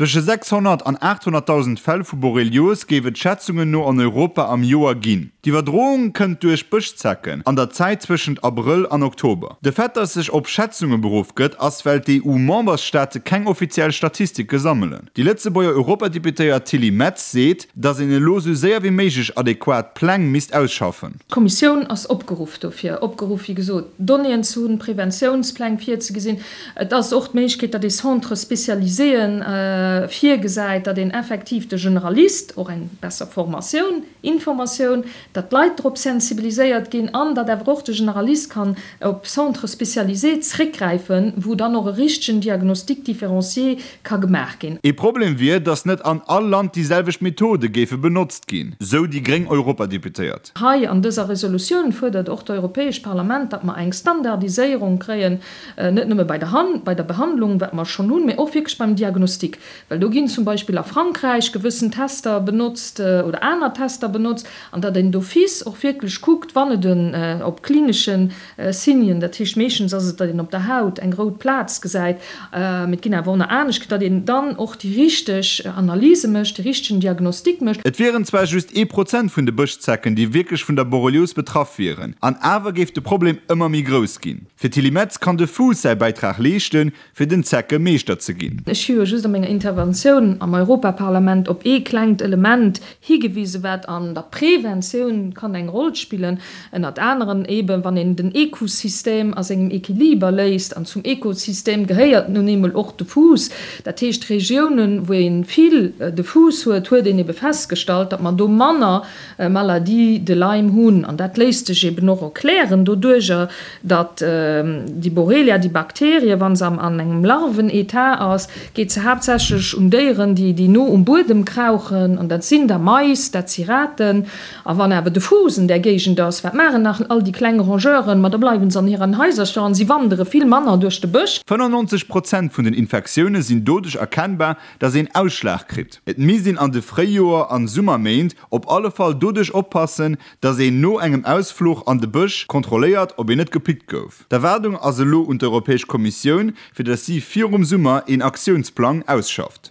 Zwësche 600 an 800.000 Fäll vu Borrelios géif et Schätzungen no an Europa am Joer ginn. D'Iwwerdroung kënnt duerch Bëschzecken an der Zäit zwëschent Abrëll an Oktober. De Fait, datt sech op Schätzunge beruff gëtt, ass well d'EU-Membersstaate keng offiziell Statistike sammelen. Déi Lëtzebuerger Europadeputéiert Tilly Metz seet, datt een elo sou séier wéi méiglech adequat Pläng misst ausschaffen. D'Kommissioun ass opgeruff dofir, opgeruff wéi gesot Donnéeën ze hunn, Preventiounspläng virzegesinn. Et ass och d'Méiglechkeet, datt ee Centres spécialiséen virgesäit, datt een effektiv de Generalist och eng besser Formatioun, Informatioun, datt d'Leit drop sensibiliséiert ginn an datt awer och de Generalist kann op Centres spécialisés zréckgräifen, wou dann och e richtegen Diagnostic différencié ka gemaach ginn. Ee Problem wier, datt net an all Land déi selwecht Methode géife benotzt ginn, sou déi gréng Europadeputéiert. Hei an dëser Resolutioun fuerdert och d'Europäescht Parlament, datt mer eng Standardiséierung kréien, net nëmme bei der bei der Behandlung, wat mer schonn hunn, mä och wierklech beim Diagnostic. Well do ginn zum Beispill a Frankräich gewëssen Tester benotzt oder aner Tester benotzt, an datt een d'office och wierklech kuckt, wann et en op klinesche Signen, dat heescht meeschtens ass et, datt een op der Haut eng rout Plaz gesäit, mee et ginn awer och nach anescht, datt een dann och déi richteg Analyse mécht, de richtegen Diagnostic mécht. Et wieren zwar just ee Prozent vun de Bëschzecken, déi wierklech vun der Borrelios betraff wieren, an awer géif de Problem ëmmer méi grouss ginn. Fir d'Tilly Metz kann de Fuuss säi Bäitrag leeschten, fir den Zecke Meeschter ze ginn. Ech hu jo just a menger Interventioun am Europaparlament op ee klengt Element higewisen, wat an der Preventioun kann eng Roll spillen, ënnert aneren eeben, wann een den Ekosystem a sengem Equiliber léisst. An zum Ekosystem gehéiert nun eemol och de Fuuss. Dat heescht, Regiounen, wou ee vill de Fuuss huet, huet een ebe festgestallt, datt mer do manner Maladie de Lyme hunn. An dat léisst sech eben och erklären doduerjer, datt déi Borrelia, déi Bakterie, wa se an engem Larven-Etat ass, geet se haaptsächlech un Déieren, déi déi no um Buedem krauchen, an dat sinn da Mais, dat si Raten. A wann awer de Fuuss an där Géigend ass, wat maachen nach all déi kleng Rongeuren? Ma da bleiwe se an hiren Haisercher an si wandere vill manner duerch de Bësch. 95 Prozent vun den Infektioune sinn doduerch erkennbar, datt een Ausschlag kritt. Et misst een an de Fréijoer an Summerméint op alle Fall doduerch oppassen, datt een no engem Ausfluch an de Bësch kontrolléiert, ob een net gepickt gouf. D'Erwaardung ass elo un d'Europäesch Kommissioun, fir datt si virum Summer een Aktiounsplang ausschafft.